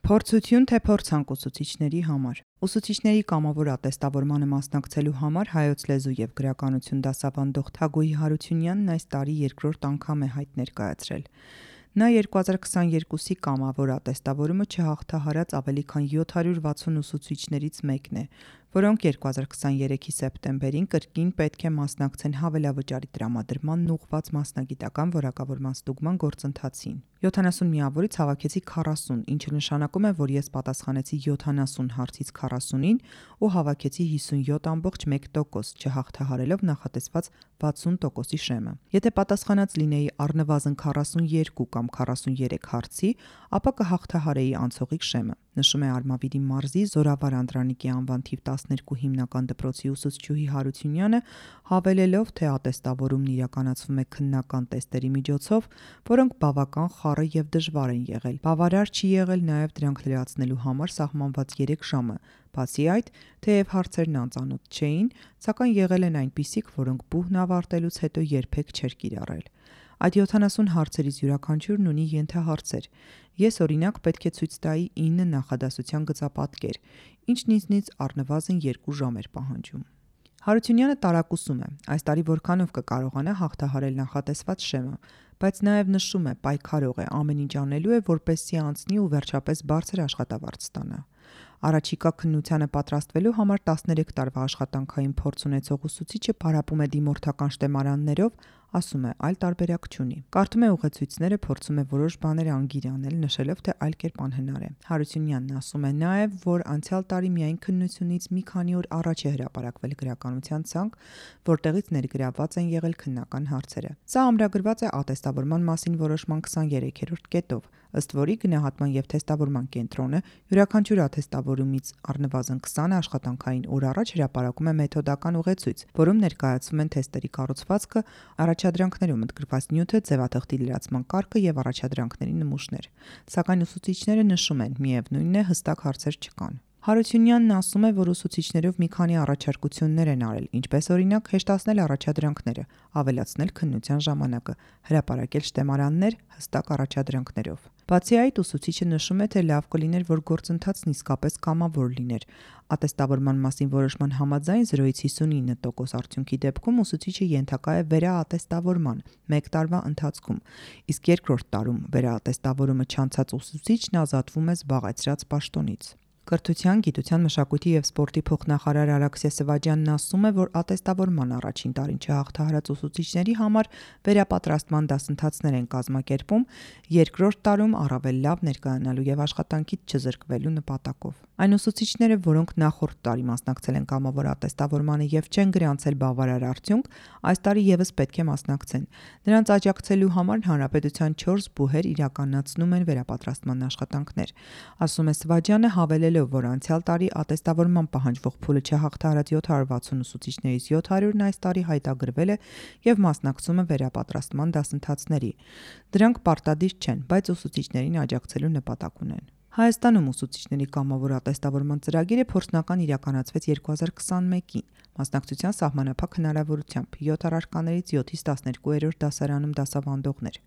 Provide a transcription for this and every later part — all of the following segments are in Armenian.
Փորձություն թե փորձանք ուսուցիչների համար։ Ուսուցիչների կամավոր ատեստավորմանը մասնակցելու համար հայոց լեզու և գրականություն դասավանդող Թագուհի Հարությունյանն այս տարի երկրորդ անգամ է հայտ ներկայացրել։ Նա 2022-ի կամավոր ատեստավորումը չհաղթահարած ավելի քան 760 ուսուցիչներից մեկն է, որոնք 2023-ի սեպտեմբերին կրկին պետք է մասնակցեն հավելավճարի տրամադրմանն ուղղված մասնագիտական որակավորման ստուգման գործընթացին։ 70 միավորից հավաքեցի 40, ինչը նշանակում է, որ ես պատասխանեցի 70 հարցից 40-ին ու հավաքեցի 57.1%, չհաղթահարելով նախատեսված 60%-ի շեմը։ Եթե պատասխանած լինեի առնվազն 42 կամ 43 հարցի, ապա կհաղթահարեի անցողիկ շեմը, նշում է Արմավիրի մարզի Զորավար Անդրանիկի անվան թիվ 12 հիմնական դպրոցի ուսուցչուհի Հարությունյանը, հավելելով, թե ատեստավորումն իրականացվում է քննական տեստերի միջոցով, որոնք բավական խառը և դժվար են եղել։ Բավարար չի եղել նաև դրանք լրացնելու համար սահմանված 3 ժամը։ Բացի այդ, թեև հարցերն անծանոթ չէին, սակայն եղել են այնպիսիք, որոնք բուհն ավարտելուց հետո երբեք չէր կիրառել։ Այդ 70 հարցերից յուրաքանչյուրն ունի ենթահարցեր։ Ես օրինակ պետք է ցույց տայի 9 նախադասության գծապատկեր, ինչն ինձնից առնվազն 2 ժամ էր պահանջում։ Հարությունյանը տարակուսում է, այս տարի որքանով կկարողանա հաղթահարել նախատեսված շեմը, բայց նաև նշում է, պայքարող է, ամեն ինչ անելու է, որպեսզի անցնի ու վերջապես բարձր աշխատավարձ ստանա։ Առաջիկա քննությանը պատրաստվելու համար 13 տարվա աշխատանքային փորձ ունեցող ուսուցիչը պարապում է դիմորդական շտեմարաններով, ասում է, այլ տարբերակ չունի։ Կարդում է ուղեցույցները, փորձում է որոշ բաներ անգիր անել, նշելով, թե այլ կերպ անհնար է։ Հարությունյանն ասում է նաև, որ անցյալ տարի միայն քննությունից մի քանի օր առաջ է հրապարակվել գրականության ցանկ, որտեղից ներգրավված են եղել քննական հարցերը։ Սա ամրագրված է ատեստավորման մասին որոշման 23-րդ կետով, ըստ որի գնահատման և թեստավորման կենտրոնը յուրաքանչյուր աթեստավորումից առնվազն 20 աշխատանքային օր առաջ հրապարակում է մեթոդական ուղեցույց, որում ներկայացվում են թեստերի կառուցվածքը, առաջադրանքներում ընդգրկված նյութը, ձևաթղթի լրացման կարգը և առաջադրանքների նմուշներ։ Սակայն ուսուցիչները նշում են, միևնույնն է, հստակ հարցեր չկան։ Հարությունյանն ասում է, որ ուսուցիչներով մի քանի առաջարկություններ են արել, ինչպես օրինակ հեշտացնել առաջադրանքները, ավելացնել քննության ժամանակը, հրապարակել շտեմարաններ հստակ առաջադրանքներով։ Բացի այդ, ուսուցիչը նշում է, թե լավ կլիներ, որ գործընթացն իսկապես կամավոր լիներ։ Ատեստավորման մասին որոշման համաձայն 0-ից 59% արդյունքի դեպքում ուսուցիչը ենթակա է վերաատեստավորման 1 տարվա ընթացքում, իսկ երկրորդ տարում վերաատեստավորումը չանցած ուսուցիչն ազատվում է զբաղեցրած պաշտոնից։ Կրթության, գիտության, մշակույթի և սպորտի փոխնախարար Արաքսե Սվաջյանն ասում է, որ ատեստավորման առաջին տարին չհաղթահարած ուսուցիչների համար վերապատրաստման դասընթացներ են կազմակերպում, երկրորդ տարում առավել լավ ներկայանալու և աշխատանքից չզրկվելու նպատակով։ Այն ուսուցիչները, որոնք նախորդ տարի մասնակցել են կամավոր ատեստավորմանը և չեն գրանցել բավարար արդյունք, այս տարի ևս պետք է մասնակցեն։ Նրանց աջակցելու համար հանրապետության 4 բուհեր իրականացնում են վերապատրաստման աշխատանքներ, ասում է Սվաջյանը, հավելելով, որ անցյալ տարի ատեստավորման պահանջվող փուլը չհաղթահարած 760 ուսուցիչներից 700-ն այս տարի հայտագրվել է և մասնակցում է վերապատրաստման դասընթացների։ Դրանք պարտադիր չեն, բայց ուսուցիչներին աջակցելու նպատակ ունեն։ Հայաստանում ուսուցիչների կամավոր ատեստավորման ծրագիրը փորձնական իրականացվեց 2021-ին, մասնակցության սահմանափակ հնարավորությամբ 7 առարկաներից 7-ից 12-րդ դասարանում դասավանդողներ։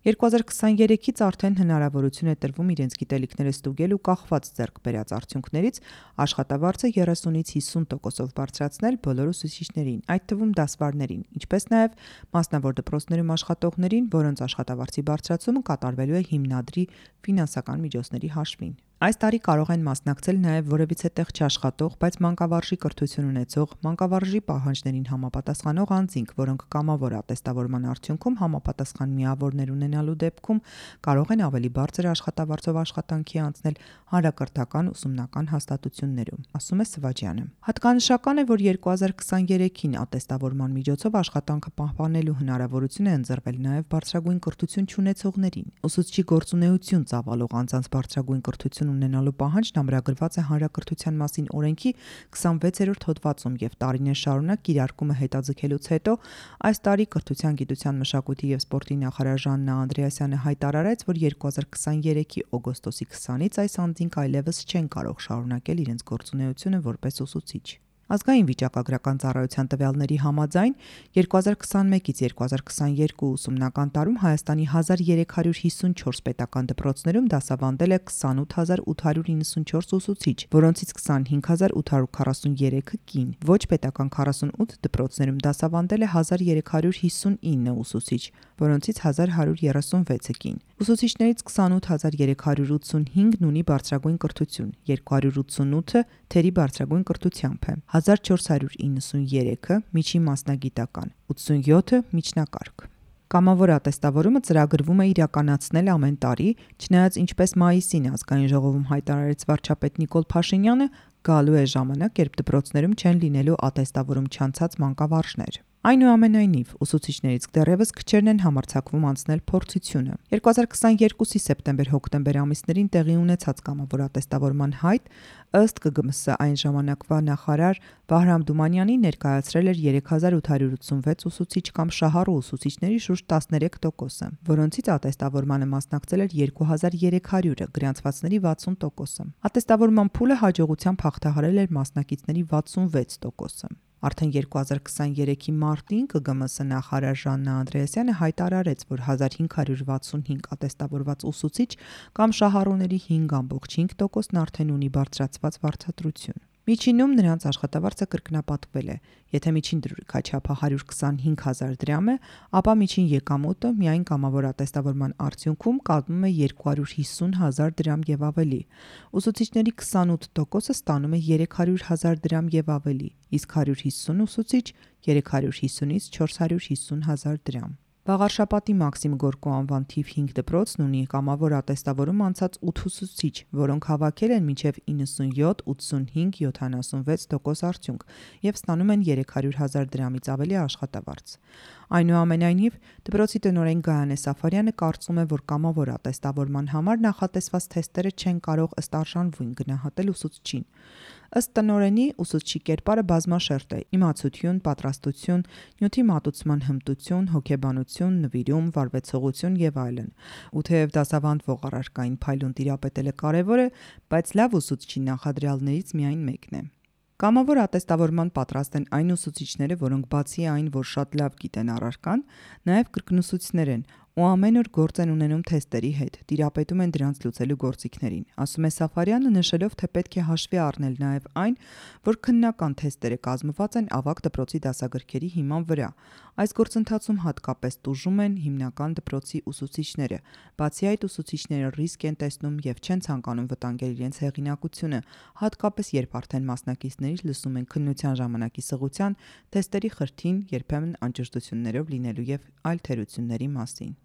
2023-ից արդեն հնարավորություն է տրվում իրենց գիտելիքները ստուգել ու կախված ձեռք բերած արդյունքներից աշխատավարձը 30-ից 50%-ով բարձրացնել բոլոր ուսուցիչներին, այդ թվում դասվարներին, ինչպես նաև մասնավոր դպրոցներում աշխատողներին, որոնց աշխատավարձի բարձրացումը կատարվելու է հիմնադրի ֆինանսական միջոցների հաշվին։ Այս տարի կարող են մասնակցել նաև որևիցե տեղ չաշխատող, բայց մանկավարժի կրթություն ունեցող, մանկավարժի պահանջներին համապատասխանող անձինք, որոնք կամավոր ատեստավորման արդյունքում համապատասխան միավորներ ունենալու դեպքում կարող են ավելի բարձր աշխատավարձով աշխատանքի անցնել հանրակրթական ուսումնական հաստատություններում, ասում է Սվաջյանը։ Հատկանշական է, որ 2023-ին ատեստավորման միջոցով աշխատանքը պահպանելու հնարավորություն է ընձեռվել նաև բարձրագույն կրթություն չունեցողներին։ Ուսուցչի գործունեություն ծավալող անձանց բարձրագույն կրթություն ունենալու պահանջն ամրագրված է Հանրակրթության մասին օրենքի 26-րդ հոդվածում և տարիներ շարունակ կիրարկումը հետաձգելուց հետո այս տարի Կրթության, գիտության, մշակույթի և սպորտի նախարար Ժաննա Անդրեասյանը հայտարարեց, որ 2023-ի օգոստոսի 20-ից այս անձինք այլևս չեն կարող շարունակել իրենց գործունեությունը որպես ուսուցիչ։ Ազգային վիճակագրական ծառայության տվյալների համաձայն 2021-ից 2022 ուսումնական տարում Հայաստանի 1354 պետական դպրոցներում դասավանդել է 28894 ուսուցիչ, որոնցից 25843-ը կին։ Ոչ պետական 48 դպրոցներում դասավանդել է 1359 ուսուցիչ, որոնցից 1136-ը կին։ Ուսուցիչներից 28385-ն ունի բարձրագույն կրթություն, 288-ը թերի բարձրագույն կրթությամբ է, 1493-ը միջին մասնագիտական, 87-ը միջնակարգ։ Կամավոր ատեստավորումը ծրագրվում է իրականացնել ամեն տարի, չնայած ինչպես մայիսին ազգային ժողովում հայտարարեց վարչապետ Նիկոլ Փաշինյանը, գալու է ժամանակ, երբ դպրոցներում չեն լինելու ատեստավորում չանցած մանկավարժներ։ Այնուամենայնիվ, ուսուցիչներից դեռևս քչերն են համարձակվում անցնել փորձությունը։ 2022-ի սեպտեմբեր-հոկտեմբեր ամիսներին տեղի ունեցած կամավոր ատեստավորման հայտ, ըստ ԿԳՄՍ այն ժամանակվա նախարար Վահրամ Դումանյանի ներկայացրել էր 3886 ուսուցիչ կամ շահառու ուսուցիչների շուրջ 13%-ը, որոնցից ատեստավորմանը մասնակցել էր 2300-ը, գրանցվածների 60%-ը։ Ատեստավորման փուլը հաջողությամբ հաղթահարել էր մասնակիցների 66%-ը։ Արդեն 2023-ի մարտին ԿԳՄՍ նախարար Ժաննա Անդրեասյանը հայտարարեց, որ 1565 ատեստավորված ուսուցիչ կամ շահառուների 5.5%-ն արդեն ունի բարձրացված վարձատրություն։ Միջինում նրանց աշխատավարձը կրկնապատկվել է։ Եթե միջին դրույքաչափը 125,000 դրամ է, ապա միջին եկամուտը միայն կամավոր ատեստավորման արդյունքում կազմում է 250,000 դրամ եւ ավելի։ Ուսուցիչների 28%-ը ստանում է 300,000 դրամ եւ ավելի, իսկ 150 ուսուցիչ 350-ից 450,000 դրամ։ Վաղարշապատի Մաքսիմ Գորկու անվան թիվ 5 դպրոցն ունի կամավոր ատեստավորում անցած 8 ուսուցիչ, որոնք հավաքել են մինչև 97, 85, 76% արդյունք եւ ստանում են 300,000 դրամից ավելի աշխատավարձ։ Այնուամենայնիվ, դպրոցի տնօրեն Գայանե Սաֆարյանը կարծում է, որ կամավոր ատեստավորման համար նախատեսված թեստերը չեն կարող ըստ արժանվույն գնահատել ուսուցչին։ Ըստ տնօրենի, ուսուցչի կերպարը բազմաշերտ է՝ իմացություն, պատրաստություն, նյութի մատուցման հմտություն, հոգեբանություն, նվիրում, վարվեցողություն եւ այլն։ Ու թեև դասավանդվող առարկային փայլուն տիրապետելը կարևոր է, բայց լավ ուսուցչի նախադրյալներից միայն մեկն է։ Կամավոր ատեստավորման պատրաստ են այն ուսուցիչները, որոնք բացի այն, որ շատ լավ գիտեն առարկան, նաև կրկնուսուցիչներ են ու ամեն օր գործ են ունենում թեստերի հետ, տիրապետում են դրանց լուծելու գործիքներին, ասում է Սաֆարյանը, նշելով, թե պետք է հաշվի առնել նաև այն, որ քննական թեստերը կազմված են ավագ դպրոցի դասագրքերի հիման վրա։ Այս գործընթացում հատկապես տուժում են հիմնական դպրոցի ուսուցիչները։ Բացի այդ, ուսուցիչները ռիսկ են տեսնում եւ չեն ցանկանում վտանգել իրենց հեղինակությունը, հատկապես երբ արդեն մասնակիցներից լսում են քննության ժամանակի սղության, թեստերի խրթին, երբեմն անճշտություններով լինելու եւ այլ թերությունների մասին։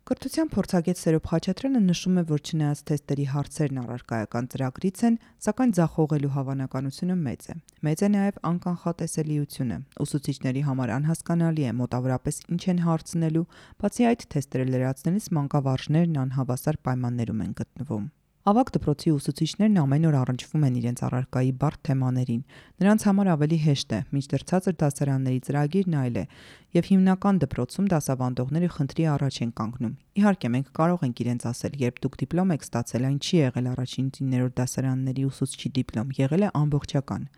Կրթության փորձագետ Սերոբ Խաչատրյանը նշում է, որ չնայած թեստերի հարցերն առարկայական ծրագրից են, սակայն ձախողելու հավանականությունը մեծ է։ Մեծ է նաև անկանխատեսելիությունը։ Ուսուցիչների համար անհասկանալի է մոտավորապես ինչ են հարցնելու, բացի այդ թեստերը լրացնելիս մանկավարժներն անհավասար պայմաններում են գտնվում։ Ավագ դպրոցի ուսուցիչներն ամեն օր առնչվում են իրենց առարկայի բարդ թեմաներին։ Նրանց համար ավելի հեշտ է, մինչդեռ ցածր դասարանների ծրագիրն այլ է, եւ հիմնական դպրոցում դասավանդողները խնդրի առաջ են կանգնում։ Իհարկե, մենք կարող ենք իրենց ասել, երբ դուք դիպլոմ եք ստացել, այն չի եղել առաջին 9-րդ դասարանների ուսուցչի դիպլոմ, եղել է ամբողջական։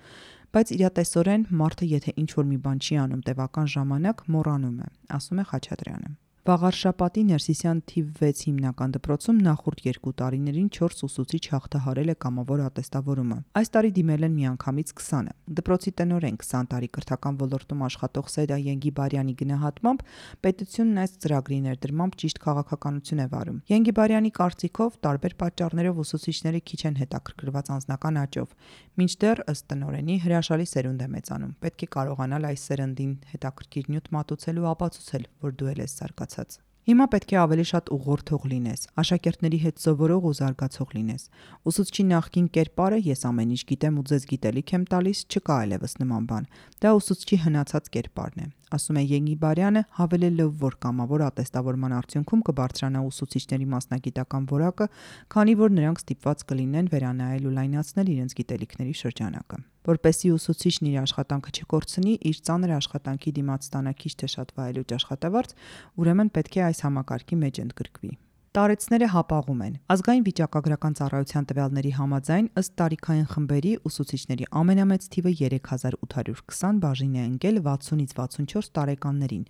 Բայց իրատեսորեն մարդը, եթե ինչ-որ մի բան չի անում տևական ժամանակ, մոռանում է, ասում է Խաչատրյանը։ Վաղարշապատի Ներսիսյան թիվ 6 հիմնական դպրոցում նախորդ 2 տարիներին 4 ուսուցիչ հաղթահարել է կամավոր ատեստավորումը։ Այս տարի դիմել են միանգամից 20-ը։ Դպրոցի տնօրեն 20 տարի կրթական ոլորտում աշխատող Սեդա Ենգիբարյանի գնահատմամբ պետությունն այս ծրագրի ներդրմամբ ճիշտ քաղաքականություն է վարում։ Ենգիբարյանի կարծիքով տարբեր պատճառներով ուսուցիչները քիչ են հետաքրքրված անձնական աճով, մինչդեռ ըստ տնօրենի հրաշալի սերունդ է մեծանում։ Պետք է կարողանալ այս սերնդին հետաքրքիր նյութ մատուցել ու ապացուցել, որ դու ես զարգացած։ Հիմա պետք է ավելի շատ ուղղորդող լինես, աշակերտների հետ սովորող ու զարգացող լինես։ Ուսուցչի նախկին կերպարը ես ամեն ինչ գիտեմ ու ձեզ գիտելիք եմ տալիս, չկա այլևս նման բան։ Դա ուսուցչի հնացած կերպարն է, ասում է Ենգիբարյանը, հավելելով, որ կամավոր ատեստավորման արդյունքում կբարձրանա ուսուցիչների մասնագիտական որակը, քանի որ նրանք ստիպված կլինեն վերանայել ու լայնացնել իրենց գիտելիքների շրջանակը։ Որպեսզի ուսուցիչն իր աշխատանքը չկորցնի, իր ծանր աշխատանքի դիմաց ստանա քիչ թե շատ վայելուչ աշխատավարձ, ուրեմն պետք է այս համակարգի մեջ ընդգրկվի։ Տարեցները հապաղում են։ Ազգային վիճակագրական ծառայության տվյալների համաձայն ըստ տարիքային խմբերի ուսուցիչների ամենամեծ թիվը 3820 բաժին է ընկել 60-ից 64 տարեկաններին,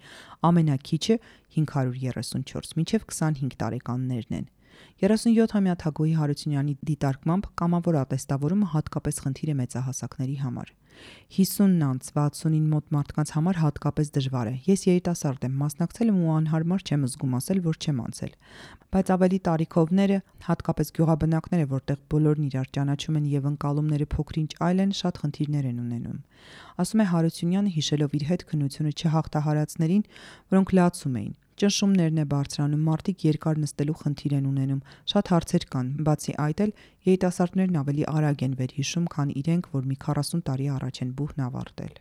ամենաքիչը 534 մինչև 25 տարեկաններն են։ 37-ամյա Թագուհի Հարությունյանի դիտարկմամբ կամավոր ատեստավորումը հատկապես խնդիր է մեծահասակների համար։ 50-ից 60-ին մոտ մարդկանց համար հատկապես դժվար է։ Ես երիտասարդ եմ, մասնակցել եմ ու անհարմար չեմ զգում ասել, որ չեմ անցել։ Բայց ավելի տարիքովները, հատկապես գյուղաբնակները, որտեղ բոլորն իրար ճանաչում են եւ ընկալումները փոքրինչ այլ են, շատ խնդիրներ են ունենում։ Ասում է Հարությունյանը, հիշելով իր հետ քննությունը չհաղթահարածներին, որոնք լացում էին։ Ճնշումներն է բարձրանում, մարդիկ երկար նստելու խնդիր են ունենում, շատ հարցեր կան, բացի այդ էլ երիտասարդներն ավելի արագ են վերհիշում, քան իրենք, որ մի 40 տարի առաջ են բուհն ավարտել։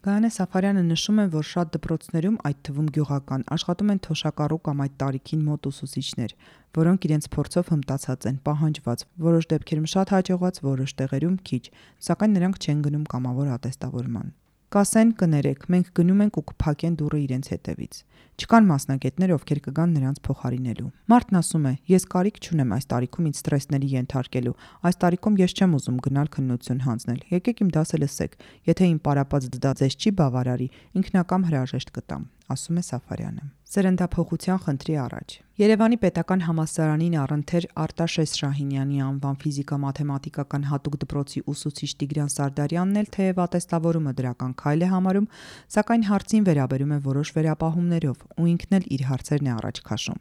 Գայանե Սաֆարյանը նշում է, որ շատ դպրոցներում, այդ թվում գյուղական, աշխատում են թոշակառու կամ այդ տարիքին մոտ ուսուցիչներ, որոնք իրենց փորձով հմտացած են, պահանջված, որոշ դեպքերում շատ հաջողված, որոշ տեղերում քիչ, սակայն նրանք չեն գնում կամավոր ատեստավորման։ Կասեն կներեք, մենք գնում ենք ու կփակեն դուռը իրենց հետևից։ Չկան մասնագետներ, ովքեր կգան նրանց փոխարինելու։ Մարդն ասում է, ես կարիք չունեմ այս տարիքում ինձ սթրեսների ենթարկելու, այս տարիքում ես չեմ ուզում գնալ քննություն հանձնել, եկեք իմ դասը լսեք, եթե իմ պարապած դա ձեզ չի բավարարի, ինքնակամ հրաժեշտ կտամ, ասում է Սաֆարյանը։ Սերնդափոխության խնդրի առաջ։ Երևանի պետական համալսարանին առընթեր Արտաշես Շահինյանի անվան ֆիզիկա-մաթեմատիկական հատուկ դպրոցի ուսուցիչ Տիգրան Սարդարյանն էլ թեև ատեստավորումը դրական քայլ է համարում, սակայն հարցին վերաբերում է որոշ վերապահումներով ու ինքն էլ իր հարցերն է առաջ քաշում,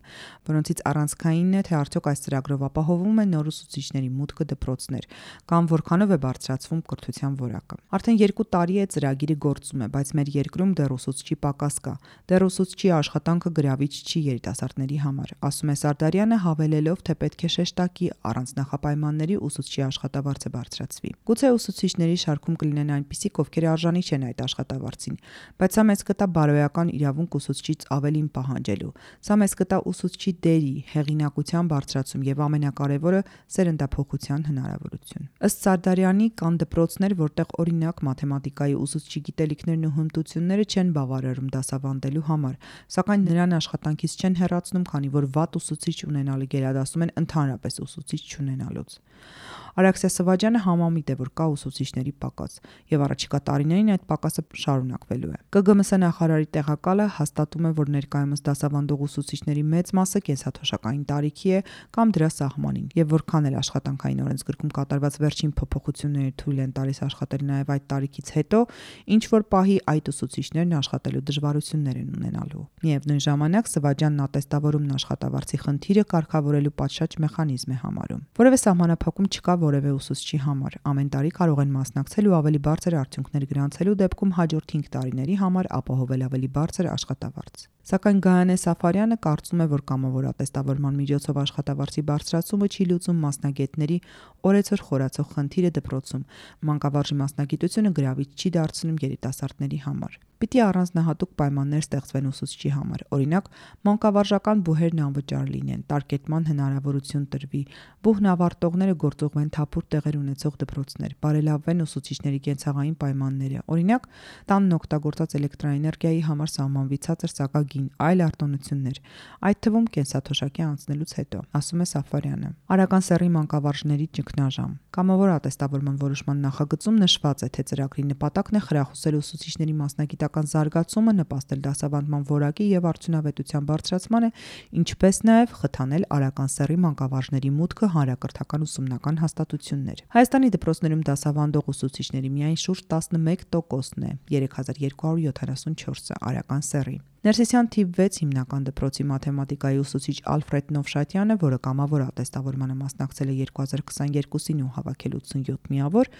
որոնցից առանցքայինն է, թե արդյոք այս ծրագրով ապահովում է նոր ուսուցիչների մուտքը դպրոցներ, կամ որքանով է բարձրացվում կրթության որակը։ Արդեն 2 տարի է ծրագիրը գործում է, բայց մեր երկրում դեռ ուսուցչի պակաս կա, դեռ ուսուցչի աշխատանքը գրավիչ չի երիտասարդների համար, ասում է Սարդարյանը, հավելելով, թե պետք է շեշտակի առանց նախապայմանների ուսուցչի աշխատավարձը բարձրացվի։ Գուցե ուսուցիչների շարքում կլինեն այնպիսիք, ովքեր արժանի չեն այդ աշխատավարձին, բայց սա մեծ կտա բարոյական իրավունք ուսուցչից ավելին պահանջելու։ Սա մեծ կտա ուսուցչի դերի, հեղինակության բարձրացում եւ ամենակարևորը սերնդափոխության հնարավորություն։ Ըստ Սարդարյանի կան դպրոցներ, որտեղ օրինակ մաթեմատիկայի ուսուցչի գիտելիքներն ու հմտությունները չեն բավարարում դասավանդելու համար, սակայն նրան աշխատանքից չեն հեռացնում, քանի որ վատ ուսուցիչ ունենալը գերադասում են ընդհանրապես ուսուցիչ չունենալուց։ Արաքսիա Սվաջյանը համամիտ է, որ կա ուսուցիչների պակաս եւ առաջիկա տարիներին այդ պակասը շարունակվելու է։ ԿԳՄՍ նախարարի տեղակալը հաստատում է, որ ներկայումս դասավանդող ուսուցիչների մեծ մասը կենսաթոշակային տարիքի է կամ դրա սահմանին, եւ որքան էլ աշխատանքային օրենսգրքում կատարված վերջին փոփոխությունները թույլ են տալիս աշխատել նաեւ այդ տարիքից հետո, ինչ որ պահի այդ ուսուցիչներն աշխատելու դժվարություններ են ունենալու։ Միևնույն ժամանակ Սվաջյանն ատեստավորումն աշխատավարձի խնդիրը կարգավորելու պատշաճ մեխանիզմ է համարում։ Որևէ սահմանափակում չկա որևէ ուսուցչի համար։ Ամեն տարի կարող են մասնակցել ու ավելի բարձր արդյունքներ գրանցելու դեպքում հաջորդ 5 տարիների համար ապահովել ավելի բարձր աշխատավարձ։ Սակայն Գայանե Սաֆարյանը կարծում է, որ կամավոր ատեստավորման միջոցով աշխատավարձի բարձրացումը չի լուծում մասնագետների օրեցօր խորացող խնդիրը դպրոցում։ Մանկավարժի մասնագիտությունը գրավիչ չի դարձնում երիտասարդների համար։ Պիտի առանձնահատուկ պայմաններ ստեղծվեն ուսուցչի համար։ Օրինակ, մանկավարժական բուհերն անվճար լինեն, տարկետման հնարավորություն տրվի, բուհն ավարտողները գործուղվեն թափուր տեղեր ունեցող դպրոցներ, բարելավվեն ուսուցիչների կենցաղային պայմանները։ Օրինակ, տանն օգտագործած էլեկտրաէներգիայի համար սահմանվի ցածր սակագին, այլ արտոնություններ, այդ թվում կենսաթոշակի անցնելուց հետո, ասում է Սաֆարյանը։ Արական սեռի մանկավարժների ճգնաժամ։ Կամավոր ատեստավորման որոշման նախագծում նշված է, թե ծրագրի նպատակն է խրախուսել ուսուցիչների մասնագիտական զարգացումը, նպաստել դասավանդման որակի եւ արդյունավետության բարձրացմանը, ինչպես նաեւ խթանել արական սեռի մանկավարժների մուտքը հանրակրթական ուսումնական հաստատություններ։ Հայաստանի դպրոցներում դասավանդող ուսուցիչների միայն շուրջ 11%-ն է, 3274-ը արական սեռի։ Ներսիսյան թիվ 6 հիմնական դպրոցի մաթեմատիկայի ուսուցիչ Ալֆրեդ Նովշատյանը, որը կամավոր ատեստավորմանը մասնակցել է 2022-ին ու հավաքել 87 միավոր,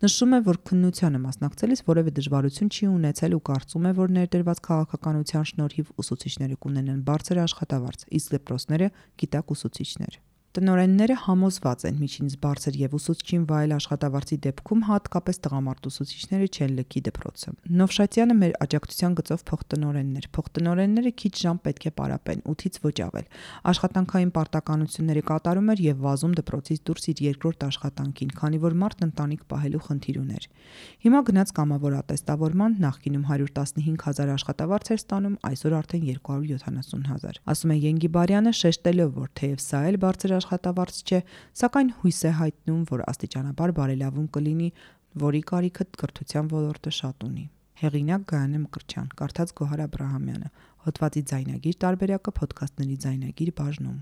նշում է, որ քննությանը մասնակցելիս որևէ դժվարություն չի ունեցել ու կարծում է, որ ներդրված քաղաքականության շնորհիվ ուսուցիչները կունենան բարձր աշխատավարձ, իսկ դպրոցները գիտակ ուսուցիչներ։ Տնօրենները համոզված են միջինից բարձր եւ ուսուցչին վայել աշխատավարձի դեպքում հատկապես տղամարդ ուսուցիչները չեն լքի դպրոցը։ Նովշատյանը մեր աջակցության գծով փոխտնօրենն էր։ Փոխտնօրենները քիչ ժամ պետք է պարապեն, 8-ից ոչ ավել։ Աշխատանքային պարտականությունները կատարում էր եւ վազում դպրոցից դուրս իր երկրորդ աշխատանքին, քանի որ մարդն ընտանիք պահելու խնդիր ուներ։ Հիմա գնաց կամավոր ատեստավորման, նախկինում 115,000 աշխատավարձ էր ստանում, այսօր արդեն 270,000։ Ասում է Ենգիբարյանը, շեշտելով, որ թեև սա էլ բարձր աշխատավարձ չէ, սակայն հույս է հայտնում, որ աստիճանաբար բարելավում կլինի, որի կարիքը կրթության ոլորտը շատ ունի։ Հեղինակ Գայանե Մկրտչյան, կարդաց Գոհար Աբրահամյանը, հոդվածի ձայնագիր տարբերակը Փոդքասթների ձայնագիր բաժնում։